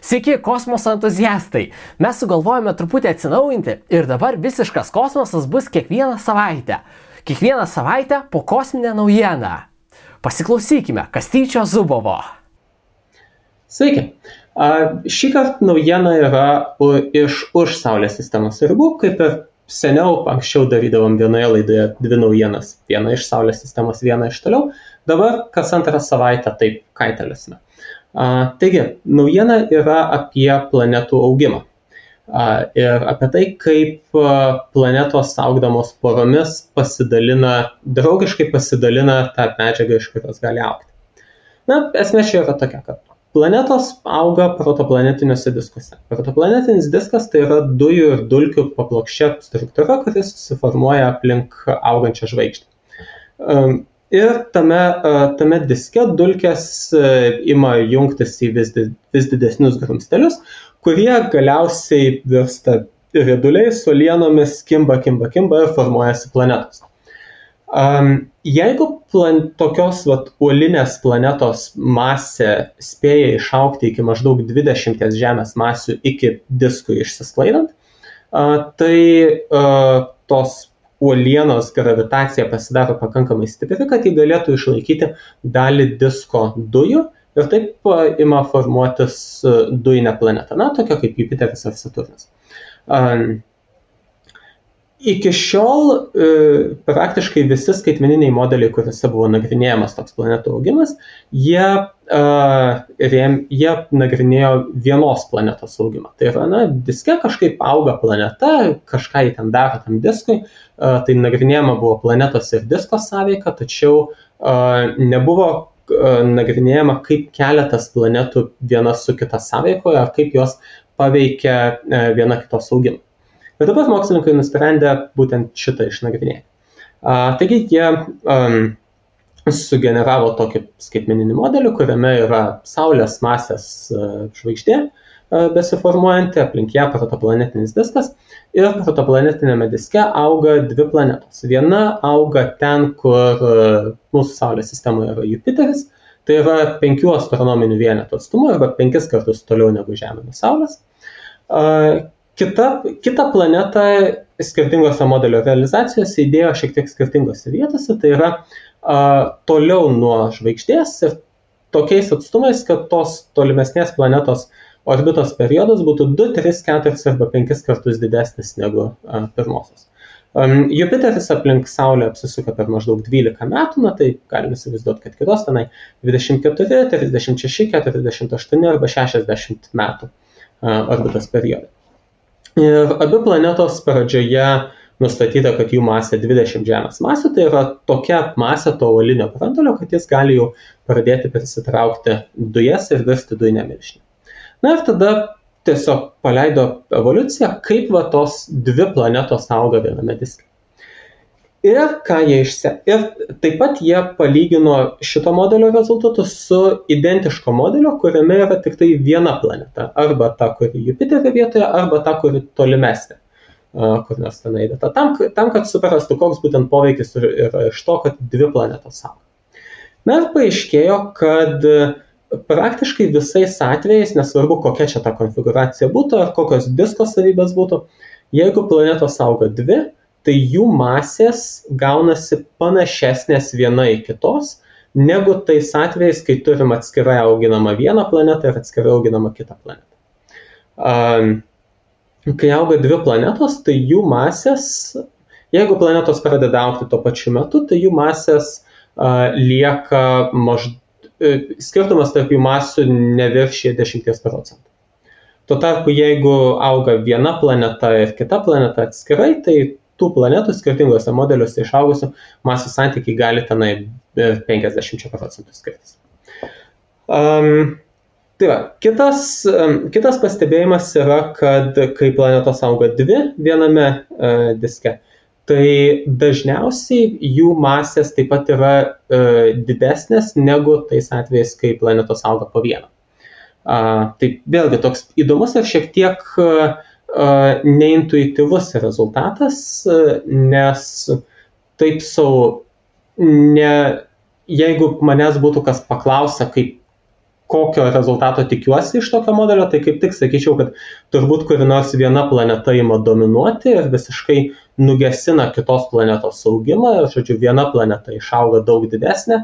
Sveiki, kosmoso entuziastai! Mes sugalvojame truputį atsinaujinti ir dabar visiškas kosmosas bus kiekvieną savaitę. Kiekvieną savaitę po kosminę naujieną. Pasiklausykime Kastyčio Zubovo. Sveiki. Šį kartą naujiena yra už Saulės sistemos ribų, kaip ir seniau, anksčiau darydavom vienoje laidoje dvi naujienas. Viena iš Saulės sistemos, viena iš toliau. Dabar kas antrą savaitę taip kaitaliosime. Taigi, naujiena yra apie planetų augimą ir apie tai, kaip planetos augdamos poromis draugiškai pasidalina tą medžiagą, iš kurios gali augti. Esmė čia yra tokia, kad planetos auga protoplanetiniuose diskuose. Protoplanetinis diskas tai yra dujų ir dulkių paplokščia struktūra, kuris susiformuoja aplink augančią žvaigždę. Ir tame diske dulkės ima jungtis į vis didesnius grumstelius, kurie galiausiai virsta rieduliais, uolienomis, kimba ir formuojasi planetos. Jeigu tokios uolinės planetos masė spėja išaugti iki maždaug 20 Žemės masių iki diskui išsisklaidant, tai tos uolienos gravitacija pasidaro pakankamai stipri, kad jį galėtų išlaikyti dalį disko dujų ir taip ima formuotis dujinė planeta, tokia kaip Jupiteris ar Saturnas. Iki šiol praktiškai visi skaitmeniniai modeliai, kuriuose buvo nagrinėjamas toks planetų augimas, jie nagrinėjo vienos planetos augimą. Tai yra, diske kažkaip auga planeta, kažką jį ten daro tam diskui, tai nagrinėjama buvo planetos ir disko sąveika, tačiau nebuvo nagrinėjama, kaip keletas planetų viena su kita sąveikoje, ar kaip jos paveikia viena kitos augimą. Ir dabar mokslininkai nusprendė būtent šitą išnagrinėti. Taigi jie sugeneravo tokį skaitmeninį modelį, kuriame yra Saulės masės žvaigždė besiformuojanti, aplink ją protoplanetinis diskas. Ir protoplanetinėme diske auga dvi planetos. Viena auga ten, kur mūsų Saulės sistemoje yra Jupiteris, tai yra 5 astronominių vienetų atstumu arba 5 kartus toliau negu Žemė nuo Saulės. Kita planeta skirtingose modelio realizacijose įdėjo šiek tiek skirtingose vietose, tai yra toliau nuo žvaigždės ir tokiais atstumais, kad tos tolimesnės planetos orbitos periodas būtų 2, 3, 4 arba 5 kartus didesnis negu pirmosios. Jupiteris aplink Saulę apsisuka per maždaug 12 metų, tai galime įsivaizduoti, kad kitos tenai 24, 36, 48 arba 60 metų orbitos periodai. Ir abi planetos pradžioje nustatyta, kad jų masė 20 Žemės masių, tai yra tokia masė to uolinio branduolio, kad jis gali jau pradėti prisitraukti dujas ir virsti dujinę milžinę. Ir tada tiesiog paleido evoliuciją, kaip tos dvi planetos auga viename diske. Ir taip pat jie palygino šito modelio rezultatus su identiško modelio, kuriame yra tik tai viena planeta, arba ta, kuri Jupiterio vietoje, arba ta, kuri tolimesnė, kur nors ten eidata. Tam, kad suprastų, koks būtent poveikis yra iš to, kad dvi planetos auga. Ir paaiškėjo, kad praktiškai visais atvejais, nesvarbu kokia čia ta konfiguracija būtų, ar kokios disko savybės būtų, jeigu planetos auga dvi, tai jų masės gaunasi panašesnės viena į kitos, negu tais atvejais, kai turim atskirai auginamą vieną planetą ir atskirai auginamą kitą planetą. Kai auga dvi planetos, tai jų masės, jeigu planetos pradeda augti tuo pačiu metu, tai jų masės lieka skirtumas tarp jų masių neviršyja 10%. Tuo tarpu, jeigu auga viena planeta ir kita planeta atskirai, tai tų planetų skirtingose modeliuose išaugusių masų santykiai gali tenai 50% skirtis. Tai va, kitas pastebėjimas yra, kad kai planetos auga dvi viename diske, tai dažniausiai jų masės taip pat yra didesnės negu tais atvejais, kai planetos auga po vieną. Tai vėlgi toks įdomus ir šiek tiek neintuityvus rezultatas, nes taip jeigu manęs būtų kas paklausia, kokio rezultato tikiuosi iš tokio modelio, tai kaip tik sakyčiau, kad turbūt kuri nors viena planeta ima dominuoti ir visiškai nugesina kitos planetos augimą, ir, žodžiu, viena planeta išauga daug didesnė,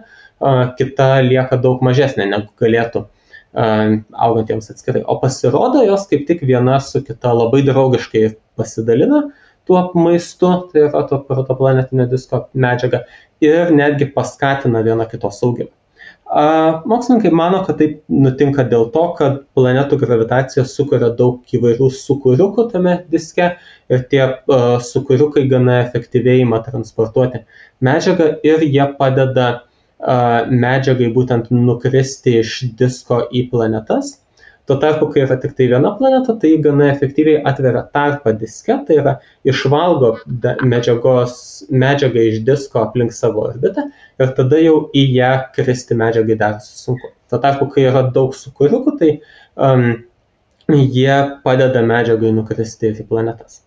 kita lieka daug mažesnė, negu galėtų augantiems atskirai. O pasirodo, jos kaip tik viena su kita labai draugiškai pasidalina tuo maistu, tai yra to protoplanetinio disko medžiaga, ir netgi paskatina viena kitos augimą. Mokslininkai mano, kad taip nutinka dėl to, kad planetų gravitacija sukuria daug įvairių sūkuriukų tame diske ir tie sūkuriukai gana efektyviai ima transportuoti medžiagą ir jie padeda medžiagai būtent nukristi iš disko į planetas. Tuo tarpu, kai yra tik tai viena planeta, tai gana efektyviai atveria tarpą diske, tai yra išvalgo medžiagą iš disko aplink savo orbitą ir tada jau į ją kristi medžiagai darosi sunku. Tuo tarpu, kai yra daug sūkuriukų, tai jie padeda medžiagai nukristi į planetas.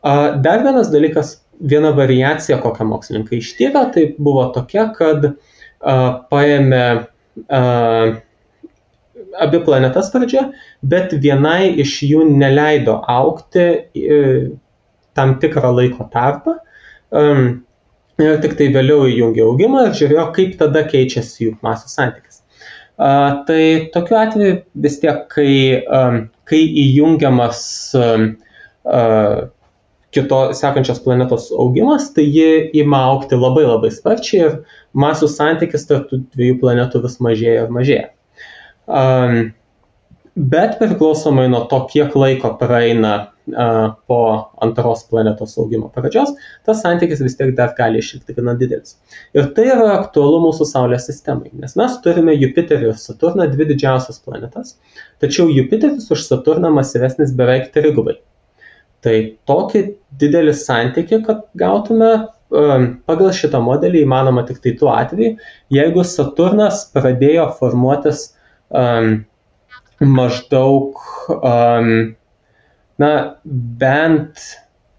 Dar vienas dalykas, viena variacija, kokią mokslininkai ištyrė, tai buvo tokia, kad paėmė abi planetas pradžioje, bet vienai iš jų neleido augti tam tikrą laiko tarpą ir tik tai vėliau įjungė augimą ir žiūrėjo, kaip tada keičiasi jų masių santykis. Tai tokiu atveju vis tiek, kai įjungiamas sekančios planetos augimas, tai ji ima augti labai labai sparčiai ir masių santykis tarp tų dviejų planetų vis mažėja ir mažėja. Bet priklausomai nuo to, kiek laiko praeina po antros planetos augimo pradžios, tas santykis vis tiek dar gali išlikti gana didelis. Ir tai yra aktualu mūsų Saulės sistemai, nes mes turime Jupiterį ir Saturną, dvi didžiausias planetas, tačiau Jupiteris už Saturną masyvesnis beveik 3 gubai. Tai tokį didelį santykį, kad gautume pagal šitą modelį įmanoma tik tai tuo atveju, jeigu Saturnas pradėjo formuotis maždaug bent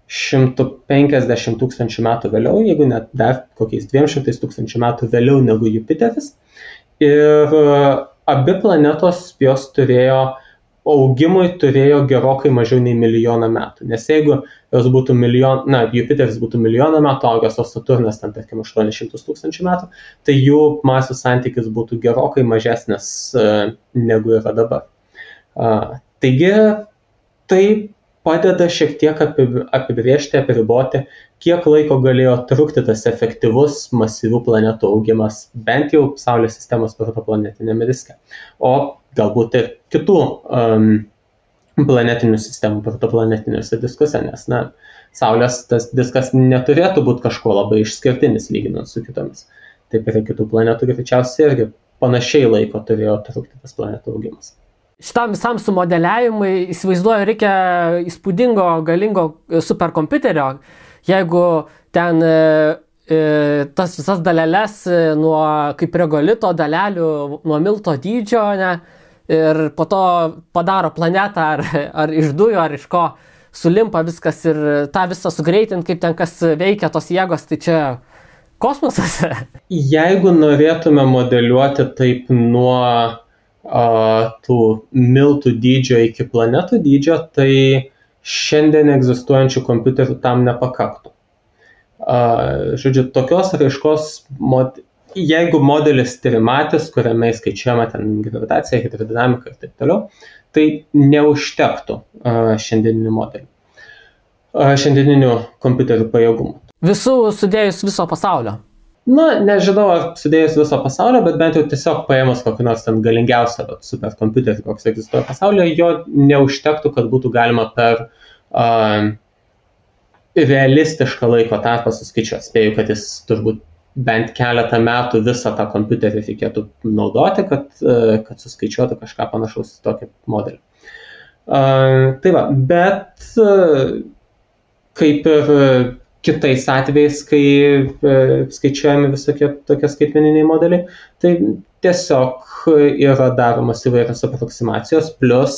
150 tūkstančių metų vėliau, jeigu net dar kokiais 200 tūkstančių metų vėliau negu Jupiteris. Ir abi planetos jos augimui turėjo gerokai mažiau nei 1 milijoną metų. Nes jeigu jos būtų Jupiteris būtų 1 milijoną metų augęs, o Saturnas ten, tarkim, 800 tūkstančių metų, tai jų masių santykis būtų gerokai mažesnis negu yra dabar. Taigi, tai padeda šiek tiek apibrėžti, apriboti, kiek laiko galėjo trukti tas efektyvus masyvių planetų augimas, bent jau Saulės sistemos protoplanetinėme diske. O galbūt ir kitų planetinių sistemų protoplanetiniuose diskuse, nes Saulės tas diskas neturėtų būti kažkuo labai išskirtinis lyginant su kitomis. Taip ir kitų planetų greičiausiai irgi panašiai laiko turėjo trukti tas planetų augimas. Šitam visam sumodeliavimui, įsivaizduoju, reikia įspūdingo, galingo superkompiuterio, jeigu ten tas visas daleles nuo kaip regolito dalelių, nuo milto dydžio, ir po to padaro planetą ar iš dujų, ar iš ko sulimpa viskas ir tą visą sugreitint, kaip ten kas veikia tos jėgos, tai čia kosmosas. Jeigu norėtume modeliuoti taip nuo tų miltų dydžio iki planetų dydžio, tai šiandien egzistuojančių kompiuterių tam nepakaktų. Žodžiu, tokios raiškos, jeigu modelis trimatis, kuriame skaičiuojama ten gravitacija, hidrodinamika ir taip toliau, tai neužtektų šiandieninių kompiuterių pajėgumų. Visų sudėjus viso pasaulio? Nežinau, ar sudėjus viso pasaulio, bet bent jau tiesiog paėmus kokį nors ten galingiausią superkompiuterį, koks egzistuoja pasaulyje, jo neužtektų, kad būtų galima per realistišką laiko tarpą suskaičiuoti. Spėju, kad jis turbūt bent keletą metų visą tą kompiuterį reikėtų naudoti, kad suskaičiuotų kažką panašaus į tokį modelį. Tai va, bet kaip ir kitais atvejais, kai skaičiuojami visokie tokie skaitmeniniai modeliai, tai tiesiog yra daromas įvairios aproksimacijos plus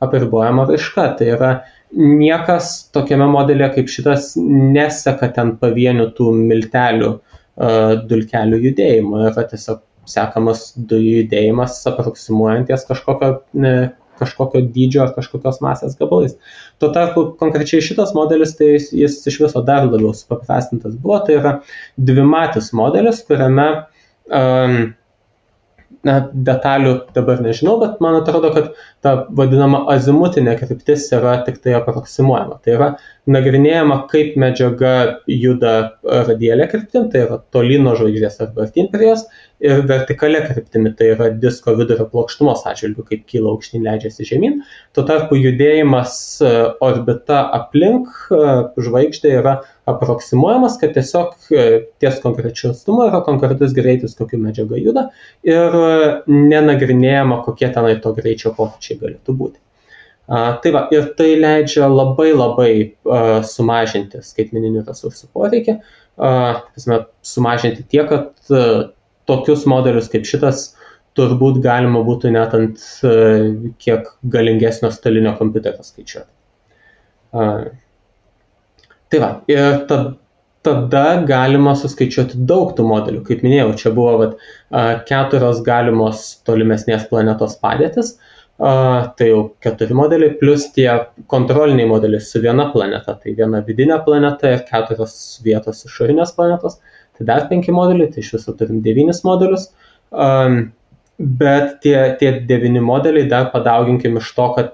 apribojama raiška. Tai yra niekas tokiame modelėje kaip šitas neseka ten pavienių tų miltelių, dulkelių judėjimo. Yra tiesiog sekamas dujų judėjimas aproksimuojanties kažkokio dydžio ar kažkokios masės gabalais. Tuo tarpu konkrečiai šitas modelis, tai jis iš viso dar labiau supaprastintas buvo, tai yra dvimatis modelis, kuriame detalių dabar nežinau, bet man atrodo, kad ta vadinama azimutinė kryptis yra tik tai aproksimuojama. Tai yra nagrinėjama, kaip medžiaga juda radialia kryptim, tai yra tolyn nuo žvaigždės arba artyn prie jos, ir vertikalia kryptimi, tai yra disko vidurio plokštumos atžvilgiu, kaip kyla aukštyn, leidžiasi žemyn. Tuo tarpu judėjimas orbita aplink žvaigždę yra aproksimuojamas, kad tiesiog ties konkrečiu atstumu yra konkretus greitis, kokiu medžiaga juda, ir nenagrinėjama, kokie tenai to greičio pokyčiai galėtų būti. Tai va, ir tai leidžia labai sumažinti skaitmeninių resursų poreikį, sumažinti tiek, kad tokius modelius kaip šitas turbūt galima būtų net ant kiek galingesnio stalinio kompiuterio skaičiuoti. Tai va, ir tada galima suskaičiuoti daug tų modelių. Kaip minėjau, čia buvo 4 galimos tolimesnės planetos padėtis, tai jau 4 modeliai, plus tie kontroliniai modeliai su viena planeta, tai viena vidinė planeta ir 4 vietos išorinės planetos. Tai dar 5 modeliai, tai iš viso turim 9 modelius, bet tie 9 modeliai dar padauginkim iš to, kad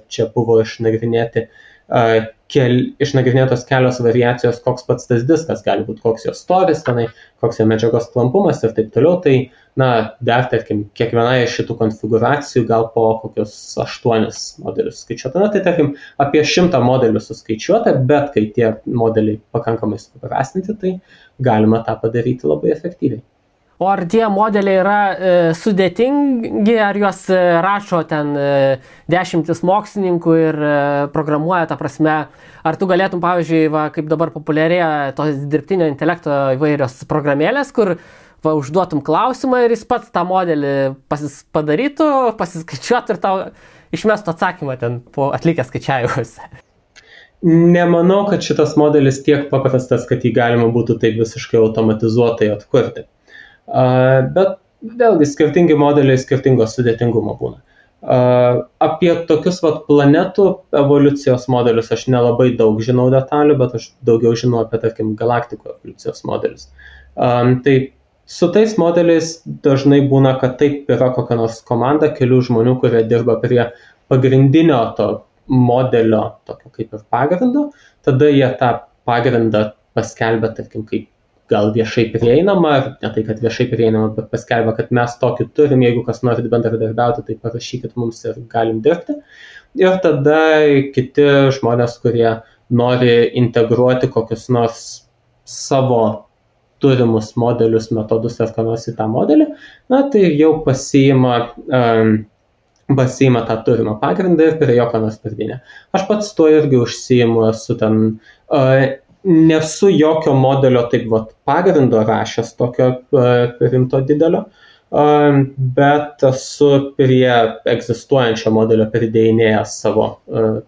čia buvo išnagrinėtos kelios variacijos, koks pats tas diskas gali būti, koks jo storis tenai, koks jo medžiagos klampumas ir taip toliau. Tai, dar, tarkim, kiekviena iš šitų konfiguracijų gal po kokius 8 modelius skaičiuota. Tai, tarkim, apie 100 modelių suskaičiuota, bet kai tie modeliai pakankamai supaprastinti, tai galima tą padaryti labai efektyviai. O ar tie modeliai yra sudėtingi, ar juos rašo ten 10 mokslininkų ir programuoja, ta prasme, ar tu galėtum, pavyzdžiui, kaip dabar populiarėja tos dirbtinio intelekto įvairios programėlės, kur užduotum klausimą ir jis pats tą modelį padarytų, pasiskaičiuotų ir tau išmestų atsakymą ten po atlikę skaičiavimus. Nemanau, kad šitas modelis tiek paprastas, kad jį galima būtų taip visiškai automatizuotai atkurti. Bet vėlgi skirtingi modeliai skirtingo sudėtingumo būna. Apie tokius planetų evoliucijos modelius aš nelabai daug žinau detalių, bet aš daugiau žinau apie, tarkim, galaktikų evoliucijos modelius. Tai su tais modeliais dažnai būna, kad taip yra kokia nors komanda kelių žmonių, kurie dirba prie pagrindinio to modelio, tokio kaip ir pagrindo, tada jie tą pagrindą paskelbia, tarkim, kaip gal viešai prieinama, ne tai, kad viešai prieinama, bet paskelbia, kad mes tokį turim, jeigu kas norit bendradarbiauti, tai parašykit mums ir galim dirbti. Ir tada kiti žmonės, kurie nori integruoti kokius nors savo turimus modelius, metodus ar ką nors į tą modelį, tai jau pasiima tą turimą pagrindą ir prie jo ką nors pridėnė. Aš pats tuo irgi užsiimu, esu ten... Nesu jokio modelio taip pagrindo rašęs tokio rimto didelio, bet esu prie egzistuojančio modelio pridėjinėjęs savo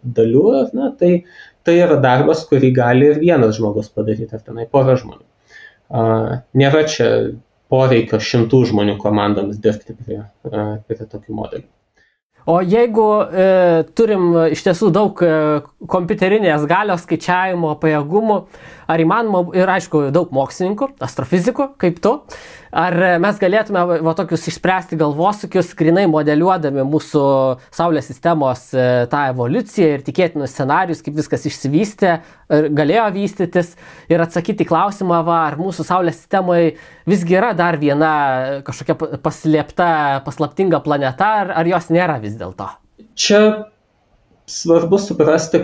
dalių. Tai yra darbas, kurį gali ir vienas žmogus padaryti, ar tenai pora žmonių. Nėra čia poreikio 100 žmonių komandoms dirbti prie tokių modelių. O jeigu turim iš tiesų daug kompiuterinės galios, skaičiavimo, pajėgumų, ar įmanoma, ir aišku, daug mokslininkų, astrofizikų, kaip tu, ar mes galėtume tokius išspręsti galvosūkius, grinai modeliuodami mūsų Saulės sistemos tą evoliuciją ir tikėtinus scenarius, kaip viskas išsivystė, galėjo vystytis, ir atsakyti klausimą, ar mūsų Saulės sistemoje visgi yra dar viena kažkokia paslaptinga planeta, ar jos nėra vis dėlto? Čia svarbu suprasti,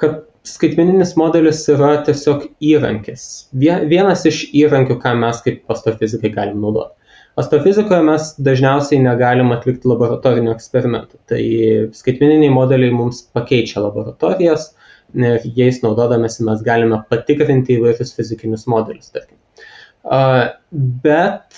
kad skaitmeninis modelis yra tiesiog įrankis. Vienas iš įrankių, ką mes kaip astrofizikai galim naudoti. Astrofizikoje mes dažniausiai negalim atlikti laboratorinių eksperimentų. Tai skaitmeniniai modeliai mums pakeičia laboratorijas ir jais naudodamėsi mes galime patikrinti įvairius fizikinius modelius, tarkim. Bet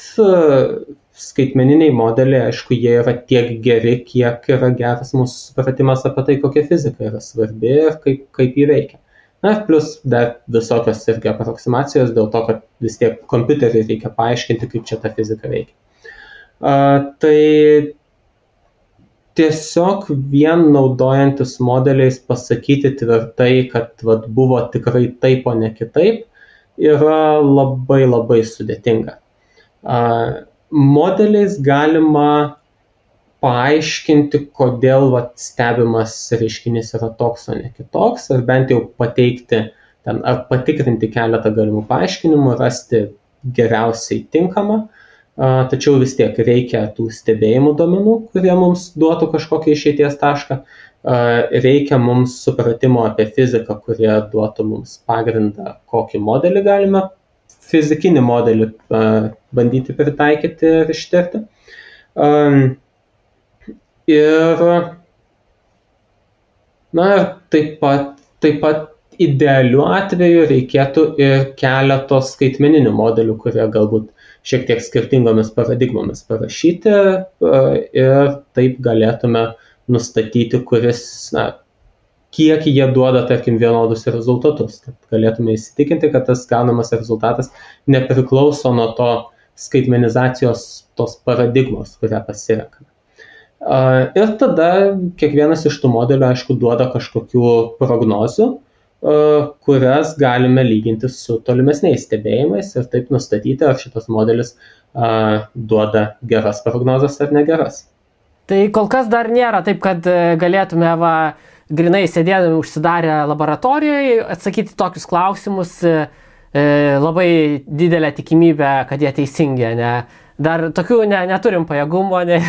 skaitmeniniai modeliai, aišku, jie yra tiek geri, kiek yra geras mūsų supratimas apie tai, kokia fizika yra svarbi ir kaip jį veikia. Na, plus dar visokios irgi aproksimacijos dėl to, kad vis tiek kompiuteriui reikia paaiškinti, kaip čia ta fizika veikia. Tai tiesiog vien naudojantis modeliais pasakyti tvirtai, kad buvo tikrai taip, o ne kitaip, yra labai labai sudėtinga. Modeliais galima paaiškinti, kodėl stebimas reiškinys yra toks, o ne kitoks, ar bent jau pateikti ar patikrinti keletą galimų paaiškinimų, rasti geriausiai tinkamą, tačiau vis tiek reikia tų stebėjimų duomenų, kurie mums duotų kažkokį išeities tašką, reikia mums supratimo apie fiziką, kurie duotų mums pagrindą, kokį modelį galime, fizikinį modelį bandyti pritaikyti ir ištirti. Ir taip pat idealiu atveju reikėtų ir keleto skaitmeninių modelių, kurie galbūt šiek tiek skirtingomis paradigmomis parašyti ir taip galėtume nustatyti, kiek jie duoda, tarkim, vienodus rezultatus. Kad galėtume įsitikinti, kad tas gaunamas rezultatas nepriklauso nuo to skaitmenizacijos tos paradigmos, kurią pasirenkame. Ir tada kiekvienas iš tų modelių, aišku, duoda kažkokių prognozių, kurias galime lyginti su tolimesniais stebėjimais ir taip nustatyti, ar šitas modelis duoda geras prognozes ar negeras. Tai kol kas dar nėra taip, kad galėtume grinai sėdėdami užsidarę laboratorijoje atsakyti tokius klausimus, labai didelę tikimybę, kad jie teisingi, ne? Dar tokių neturim pajėgumo, ne?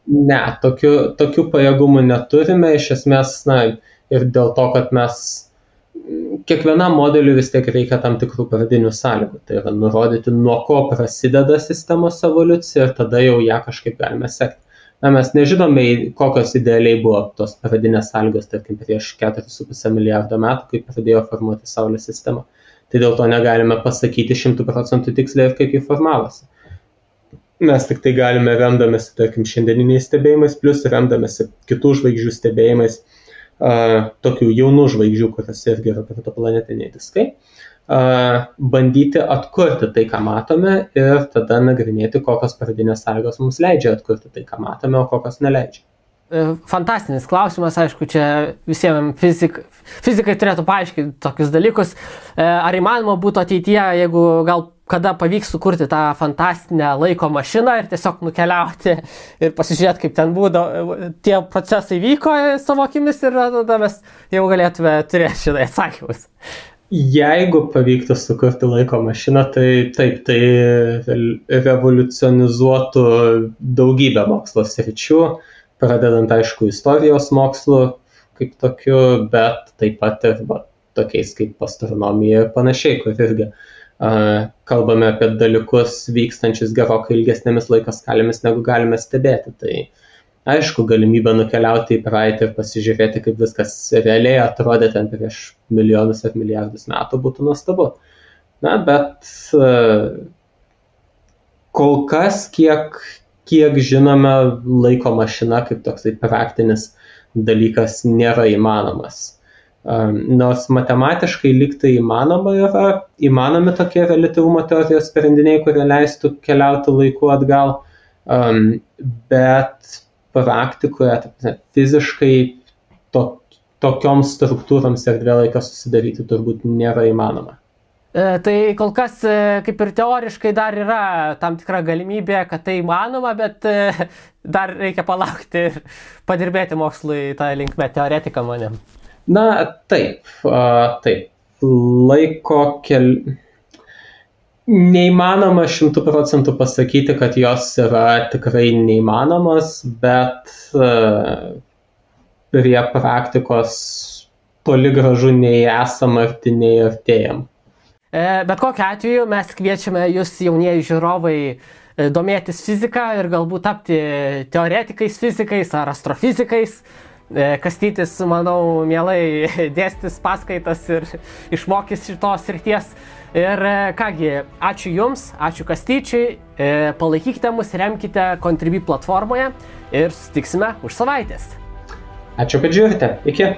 Ne, tokių pajėgumų neturime, iš esmės, ir dėl to, kad mes kiekvienam modeliui vis tiek reikia tam tikrų pradinių sąlygų, tai yra nurodyti, nuo ko prasideda sistemos evoliucija ir tada jau ją kažkaip galime sekti. Mes nežinome, kokios idealiai buvo tos pradinės sąlygos, tarkim, prieš 4,5 milijardo metų, kai pradėjo formuoti Saulės sistemą. Tai dėl to negalime pasakyti 100% tiksliai, kaip jį formavosi. Mes tik tai galime remdamėsi, tarkim, šiandieniniais stebėjimais, plus remdamėsi kitų žvaigždžių stebėjimais, tokių jaunų žvaigždžių, kurios irgi yra protoplanetiniai diskai, bandyti atkurti tai, ką matome ir tada nagrinėti, kokios pradinės sąlygos mums leidžia atkurti tai, ką matome, o kokios neleidžia. Fantastinis klausimas, aišku, čia visiems fizikai turėtų paaiškinti tokius dalykus. Ar įmanoma būtų ateityje, jeigu gal kada pavyks sukurti tą fantastinę laiko mašiną ir tiesiog nukeliauti ir pasižiūrėti, kaip ten tie procesai vyko savo akimis ir tada mes jau galėtume turėti šitai atsakymus. Jeigu pavyktų sukurti laiko mašiną, tai taip, tai revoliucionizuotų daugybę mokslo sričių, pradedant, aišku, istorijos mokslu kaip tokiu, bet taip pat ir tokiais kaip astronomija ir panašiai, kur irgi kalbame apie dalykus vykstančius gerokai ilgesnėmis laiko skalėmis, negu galime stebėti. Tai aišku, galimybė nukeliauti į praeitį ir pasižiūrėti, kaip viskas realiai atrodė ten prieš milijonus ar milijardus metų, būtų nuostabu. Bet kol kas, kiek žinome, laiko mašina kaip toksai praktinis dalykas nėra įmanomas. Nors matematiškai lyg tai įmanomi tokie reliatyvumo teorijos sprendiniai, kurie leistų keliauti laiku atgal, bet praktikoje fiziškai tokioms struktūroms erdvėlaikio susidaryti turbūt nėra įmanoma. Tai kol kas kaip ir teoriškai dar yra tam tikra galimybė, kad tai įmanoma, bet dar reikia palaukti ir padirbėti mokslui tą linkmę teoretiką manim. Taip. Neįmanoma 100% pasakyti, kad jos yra tikrai neįmanomos, bet prie praktikos toli gražu nei esam arti, nei artėjam. Bet kokiu atveju mes kviečiame jūs, jaunieji žiūrovai, domėtis fiziką ir galbūt tapti teoretikais fizikais ar astrofizikais. Kastytis, manau, mielai dėstys paskaitas ir išmokys šitos srities. Ir kągi, ačiū Jums, ačiū Kastyčiui, palaikykite mus, remkite Contribui platformoje ir susitiksime už savaitės. Ačiū, kad žiūrite. Iki.